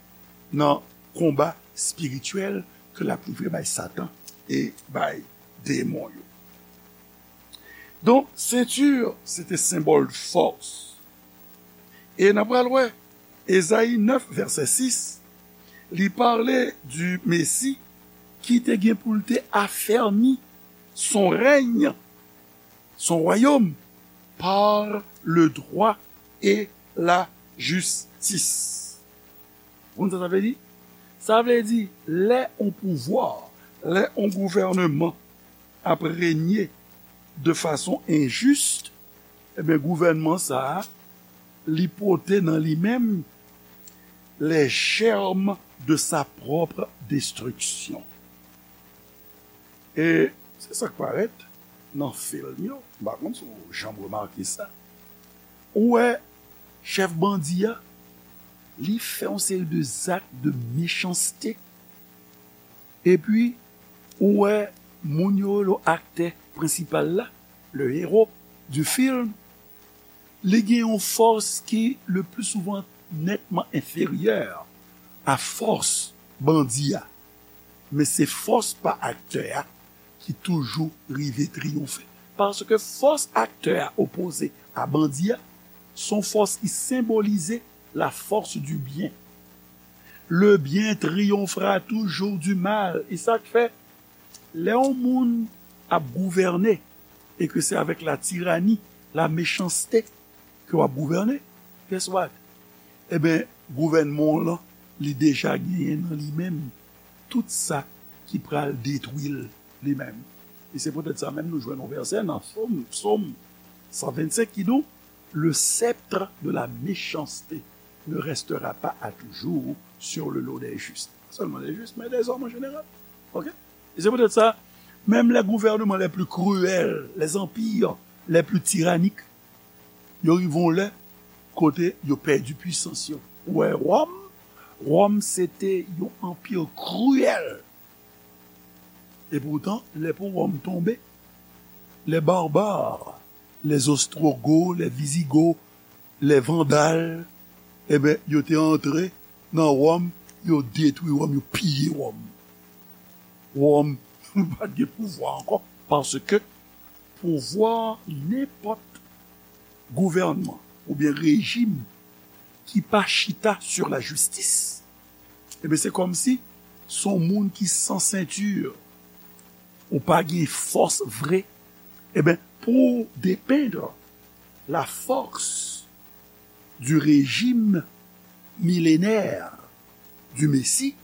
nan konba espirityèl ke l ap livre bay Satan e bay demon yo. Donk, senti, se te senbòl fòs. E n ap pral wè, Ezayi nèf, vèsè sis, li pale di Mesi ki te gen pou l te afèmi son rèy, son wayòm, par le droit et la justice. Ou konn sa sa vle di? Sa vle di, lè on pouvwa, lè on gouvènman ap renye de fason enjis, ebyen, gouvènman sa a, li pote nan li menm les germes de sa propre destruction. E se sa k parèt nan fim yo. M pa konn si w janm remake sa. Ou wè chèf bandi a, li fè yon seri de zak de mechanste. Epi, ou wè moun yo rele aktè prensipal la, le héros du film, li gen yon fòs ki, le plus souvent, netman enferyè a fòs bandi a. Men se fòs pa aktè a ki toujou rive triyonfe. Paske fòs aktè a opoze a bandi a, se yon fòs ki senbolize la force du bien. Le bien triomphera toujours du mal. E sa k fè, lè yon moun ap gouvène, e ke se avèk la tirani, la mechanste ke w ap gouvène, guess what? Ebyen, gouvènman w lan, li deja genyen nan li menm tout sa ki pral detwi l li menm. E se poutèt sa menm nou jwenn yon vèsè nan Sòm, Sòm san vennsenk ki di w, le sceptre de la méchanceté ne restera pas à toujours sur le dos des justes. Sèlman des justes, mais des hommes en général. Ok? E se poutèt sa, menm les gouvernements les plus cruels, les empires les plus tyranniques, yo rive yon lè kote yo pèdi pwisans yo. Ou wè, Wòm, Wòm se te yon anpi kriyèl. E poutan, lè pou Wòm tonbe, les barbares, les Ostrogoths, les Visigoths, les Vandales, enben, yo te antre nan Wòm, yo detwi Wòm, yo piye Wòm. Wòm pa t gen pouvwa ankò, paske pouvwa nenpòt gouvènman oubyen rejim ki pa chita sur la justice, enben, se kòmsi se yon moun ki san senti, ou pa gen fòs vre. Enben, pour dépeindre la force du régime millénaire du Messie,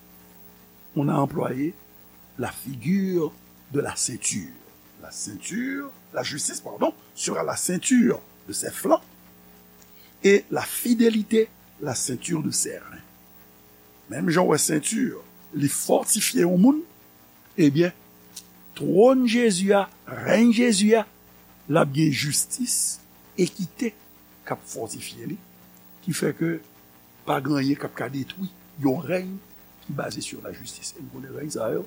on a employé la figure de la ceinture. La ceinture, la justice, pardon, sera la ceinture de ses flancs et la fidélité la ceinture de ses reins. Menm jan w wè senti, li fòtifye yon moun, ebyen, twòn Jezi a, rèy Jezi a, l ap gen jistis, ekite k ap fòtifye li, ki fè ke pa gen anyen k ap ka detwi yon rèy ki baze sur la justice. E nou konnen rèy sa yo,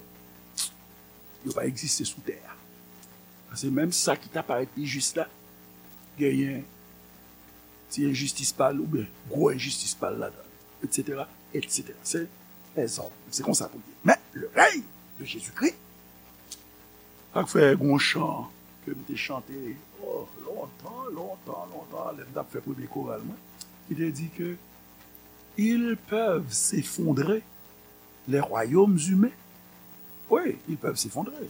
yo pa egziste sou tè a. Paske menm sa ki ta parèt pi jis la, genyen ti enjistis pa l oubyen gwo enjistis pa l ladan l, etsetera, etsetera. Se lèzòm. Se konsa pou l ye. Men, le rèy de Jezikri, sa k fè gon chan ke m te chante, oh, lontan, lontan, lontan, lè m t ap fè premye koral mwen, ki te di ke ils peuvent s'effondrer, les royaumes humains, oui, ils peuvent s'effondrer,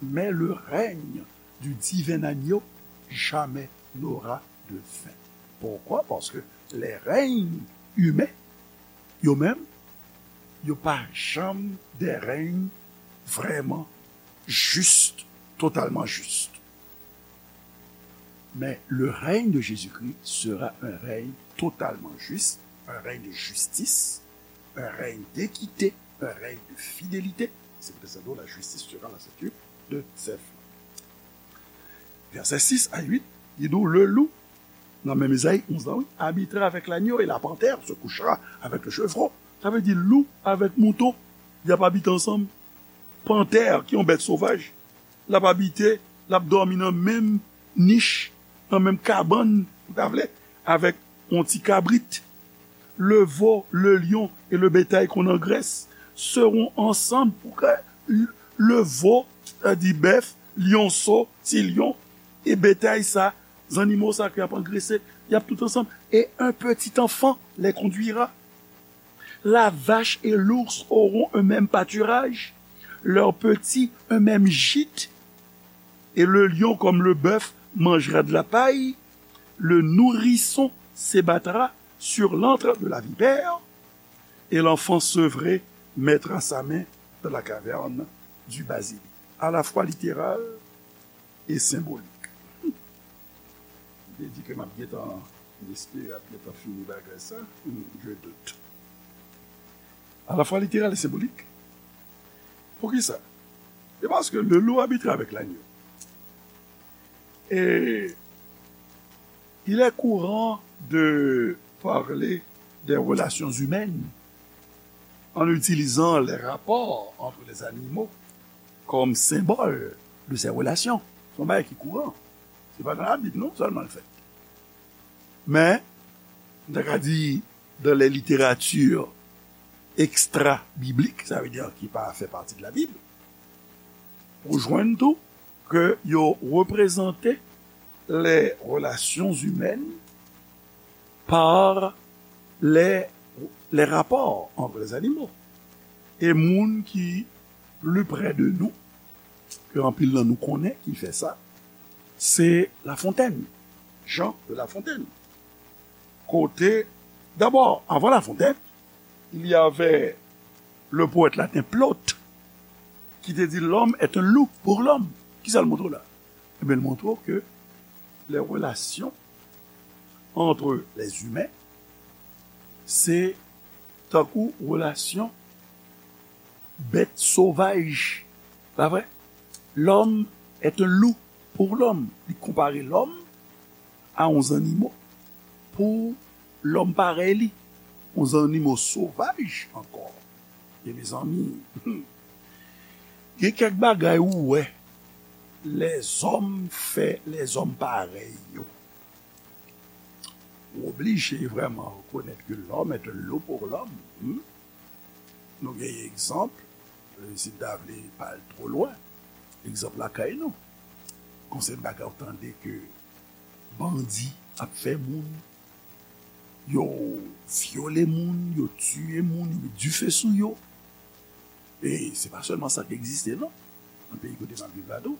mais le règne du divin agneau jamais n'aura de fin. Pourquoi? Parce que les règnes humains, yo menm, yo pa janm de règnes vraiment justes, totalement justes. Mais le règne de Jésus-Christ sera un règne totalement juste, un règne de justice, un règne d'équité, un règne de fidélité. C'est pour ça que la justice sera la ceinture de ses flancs. Vèsè sis a uit, li di w, le loup, nan menm Ezayi onz la, wi, habitera avec l'agneau et la panthère se couchera avec le chevreau. Sa vle di lou avèk mouton, y ap abite ansanm. Pantè, ki yon bèt sovaj, l ap abite, l ap dòmi nan menm nich, nan menm kabann, ou ta vle, avèk yon ti kabrit. Le veau, le lion et le bétail qu'on engraisse seront ensemble pour que le veau, sa di bèf, lyonso, ti lyon, e betay sa, zannimo sa ke y ap angrese, y ap tout ansanm. Et un petit enfant les conduira. La vache et l'ours auront un même pâturage, leurs petits un même gîte, et le lion comme le bœuf mangera de la paille, le nourrisson s'ébattra sur l'antre de la vipère, et l'enfant sevré mettra sa main dans la caverne du basilic. À la fois littéral et symbolique. M te di ke m ap gentan espere, ap gentan fini bagay sa. Hmm, je doute. À la fois littéral et symbolique. Poukisa? C'est parce que le loup habitera avec l'agneau. Et il est courant de parler des relations humaines en utilisant les rapports entre les animaux comme symbole de ces relations. Se yon bagay ki kouran. Se pa nan Labib non sèlman l fèt. Men, m ta ka di, dans les littératures extra-bibliques, sa vle di ki pa fè pati de la Bible, ou jwenn tou ke yo reprezante les relations humaines par les, les rapports entre les animaux. E moun ki pli prè de nou, ke anpil nan nou konnen ki fè sa, se La Fontaine, Jean de La Fontaine. Kote, d'abord, avant La Fontaine, il y avait le poète latin Plaute, ki te di, l'homme est un loup pour l'homme. Kisa l montre w la? Ebyen, l montre w ke les relations entre les humains, se tankou relasyon bèt sovaj. Pa vre? L'homme est un loup pour l'homme. Li konpare lòm a yon zannimo pou lòm parèy li, yon zannimo sovaj ankò. E mezanmi, gen kèk bagay ou wè lèzòm fè lèzòm parèy yo. Ou oblije vrèman rekonèt ke l'homme est un loup pour l'homme. Hmm? Nou gen egzanp, e, si n ta vle pa al twò lwen, egzanp lakay nou. Konsèy bagay ou tande ke bandi ap fè moun, yo vyole moun, yo tiye moun, yo met dife sou yo. E se pa sèlman sa k egziste, non. Nan peyi kote m ap viv la tou,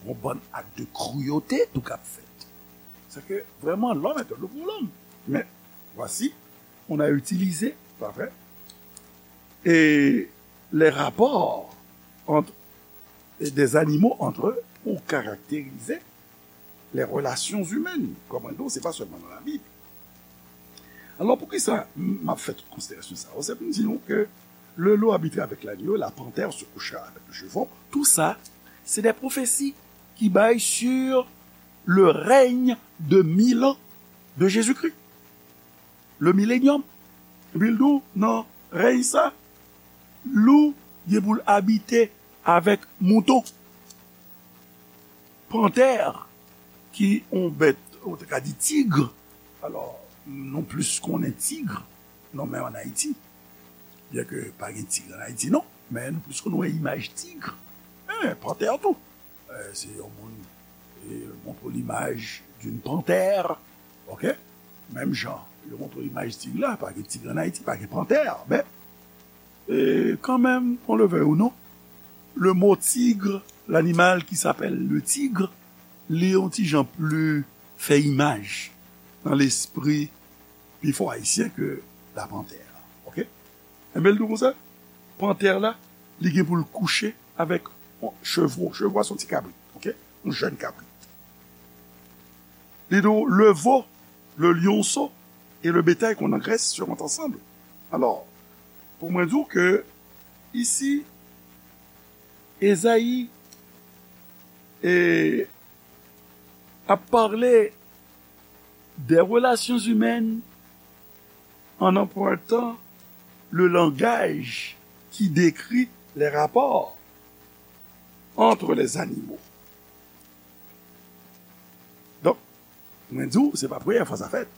yon bann ak de kruyote tou k ap fèt. Sa ke vrèman, l'homme est un loup pour l'homme. Mais voici, on a utilisé, pa vre, et les rapports entre, et des animaux entre eux pour caractériser les relations humaines. Kòm mwen di w, se pa sèlman nan Labib. Alò, poukisa m ap fè tout konsiderasyon sa yo? Se pou m di nou ke le loup habitait avec l'agneau, la panthère se coucha avec le chevreau. Tout ça, c'est des prophéties qui bay sur le règne de mille ans de Jésus-Christ. Le millénium. Epi l di w, nan rèy sa, lou gen pou l abite avèk mouton. Pantè, ki yon bèt, ou te ka di tig. Alò, nou plis konnen tig, non, men ann Ayiti. Byen ke pa gen tig ann Ayiti, non, men nou plis konn wè imaj tig. Men pantè tou. Eh, se yon moun, eh, montre w limaj d'une panthère, ok? Menm jan, yo montre w limaj tig la, pa gen tig ann Ayiti, pa gen pantè, men, eh, kanmenm, qu'on le veuille ou non, le mot tigre, l'animal qui s'appelle le tigre, li yon ti jan pli fè imaj nan lespri pifò ayisyen ke la panthère, ok? Enben, l di w konsa, pantè la, li gen pou l kouche avèk yon chevreau. Chevreau a se yon ti kabrit, ok? Yon jèn kabrit. Li di w, le veau, le lionceau et le bétail qu'on engraisse seront ensemble. Alò, pou mwen di w ke isi, Ezayi, e, ap pale des relations humaines en empruntant le langage qui décrit les rapports entre les animaux. Donk, mwen di w, se pa premyè fwa sa fèt.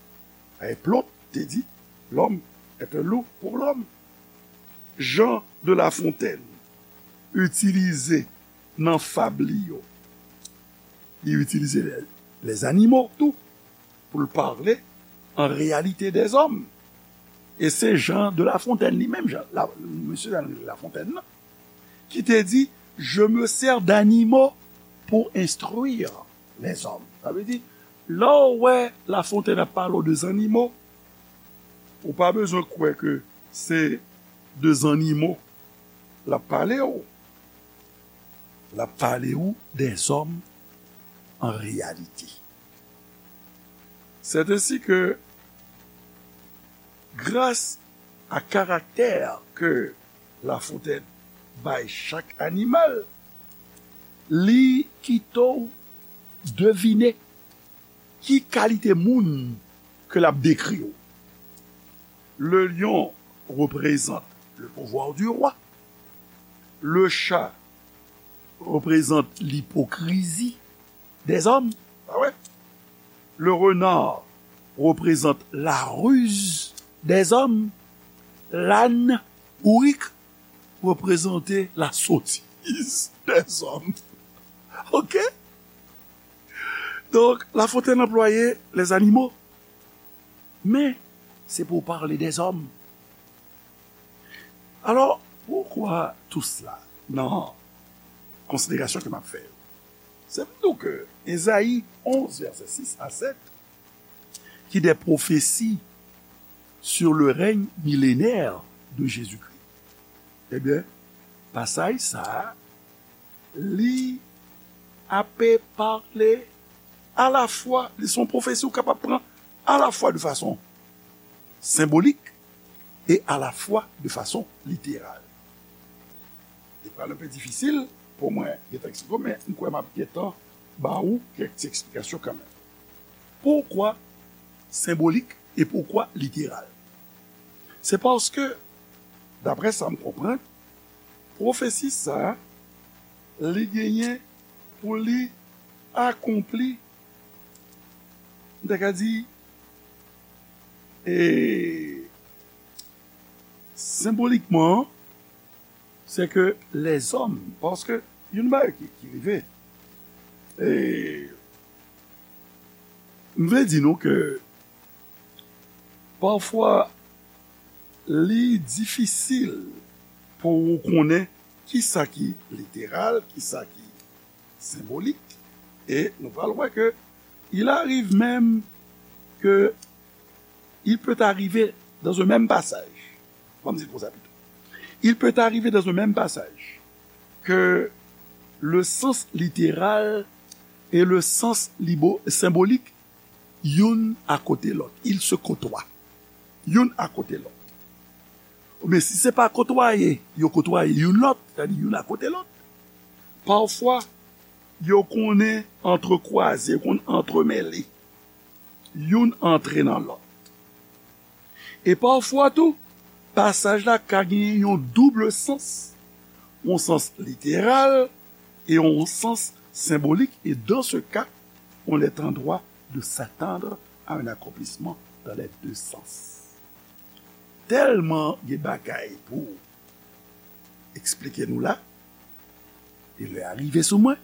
E Plot te di, l'homme est un loup pour l'homme. Jean de La Fontaine itilize nan fab li yo, li itilize les, les animaux tou pou l pale an reyalite dèzòm. E se Jean de La Fontaine li menm, Jean, la, mesye Jean de La Fontaine nan, ki te di, je me sers d'animaux pour instruire les hommes. Sa vle di, lè w wè La Fontaine ap pale w de zannimo, ou pa bezwen kwè ke se de zannimo l ap pale w. L ap pale w dèzòm an reyalite. C'est ainsi que, grâce à caractère que La Fontaine bay chak animal, li kite w devine ki kalite moun ke l ap dekri w. Le lion représente le pouvoir du roi. Le chat représente l'hypocrisie des hommes. Ah ouais. Le renard représente la ruse des hommes. L'âne bourrique représente la sottise des hommes. Ok? Donk, La Fontaine anplwaye les animaux. Men, se pou pale dèzòm. Alò, pourquoi tout cela? Nan konsiderasyon ke m ap fè yo. Se pou di w ke Ezayi onz, vèsè sis a sèt, qui des prophéties sur le règne millénaire de Jésus-Christ. Ebyen, pasaj sa a, li ape pale alafwa, li se yon pwofesi ou kapab pran alafwa de fason senbolik e alafwa de fason literal. Li pral enpe difisil pou mwen gentan eksplike w, men m kwè m ap gentan ba ou kèk ti eksplikasyon kanmenm. Poukwa senbolik e poukwa literal? Se paske, daprè sa m konprann, pwofesi sa a, li genyen pou li akonpli, m ta ka di, e, senbolikman, se ke lèzòm, paske yon bagay ki, ki rive, e, m vle di nou ke pafwa li difisil pou ou konnen ki sa ki literal, ki sa ki senbolik, e nou pral wè ke il arrive même que il peut arriver dans un même passage. Bon, m di l konsa pito. Il peut arriver dans un même passage que le sens littéral et le sens libo- symbolique, youn akote lòt. Il se côtoie. Youn akote lòt. Men si se pa kotwaye, yo kotwaye youn lòt, sètadi youn akote lòt, pafwa, yo konnen antrekwaze, yo konn antremele. Youn antre nan lòt. E pafwa tou, pasaj la ka genyen yon double sans, yon sans literal e yon sans senbolik, et dans ce cas, on est en droit de s'attendre à un accomplissement dans les deux sens. Tèlman gen bagay pou eksplike nou la, e lè a rive sou mwen,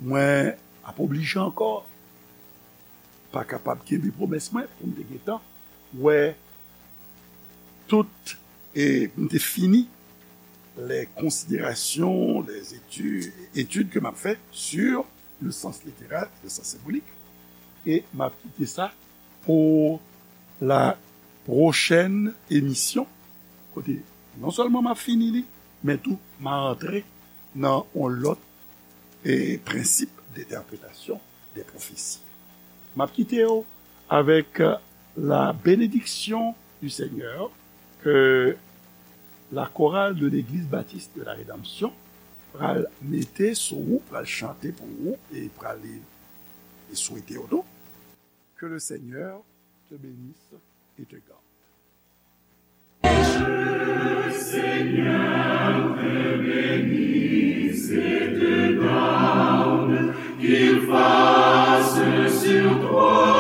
mwen ap oblije ankò pa kapab kenbe pwomès mwen pou m te gentan wè tout, e m te fini les considérations, les études, études que m ap fè sur le sens littéral, le sens symbolique, e m ap kite sa pou la pwochèn emisyon, kote non sèlman m ap fini li, men tou m a antre nan yon lòt, e, prensip de entèpretasyon de pwofesi. M ap kite w avèk, euh, la bénédiction du Seigneur que la chorale de l'Église Baptiste de la Rédemption pral mete sou ou, pral chante pou ou e pral e swete w tou. Que le Seigneur te bénisse et te garde. Que le Seigneur te bénisse et te garde, qu'il fasse sur toi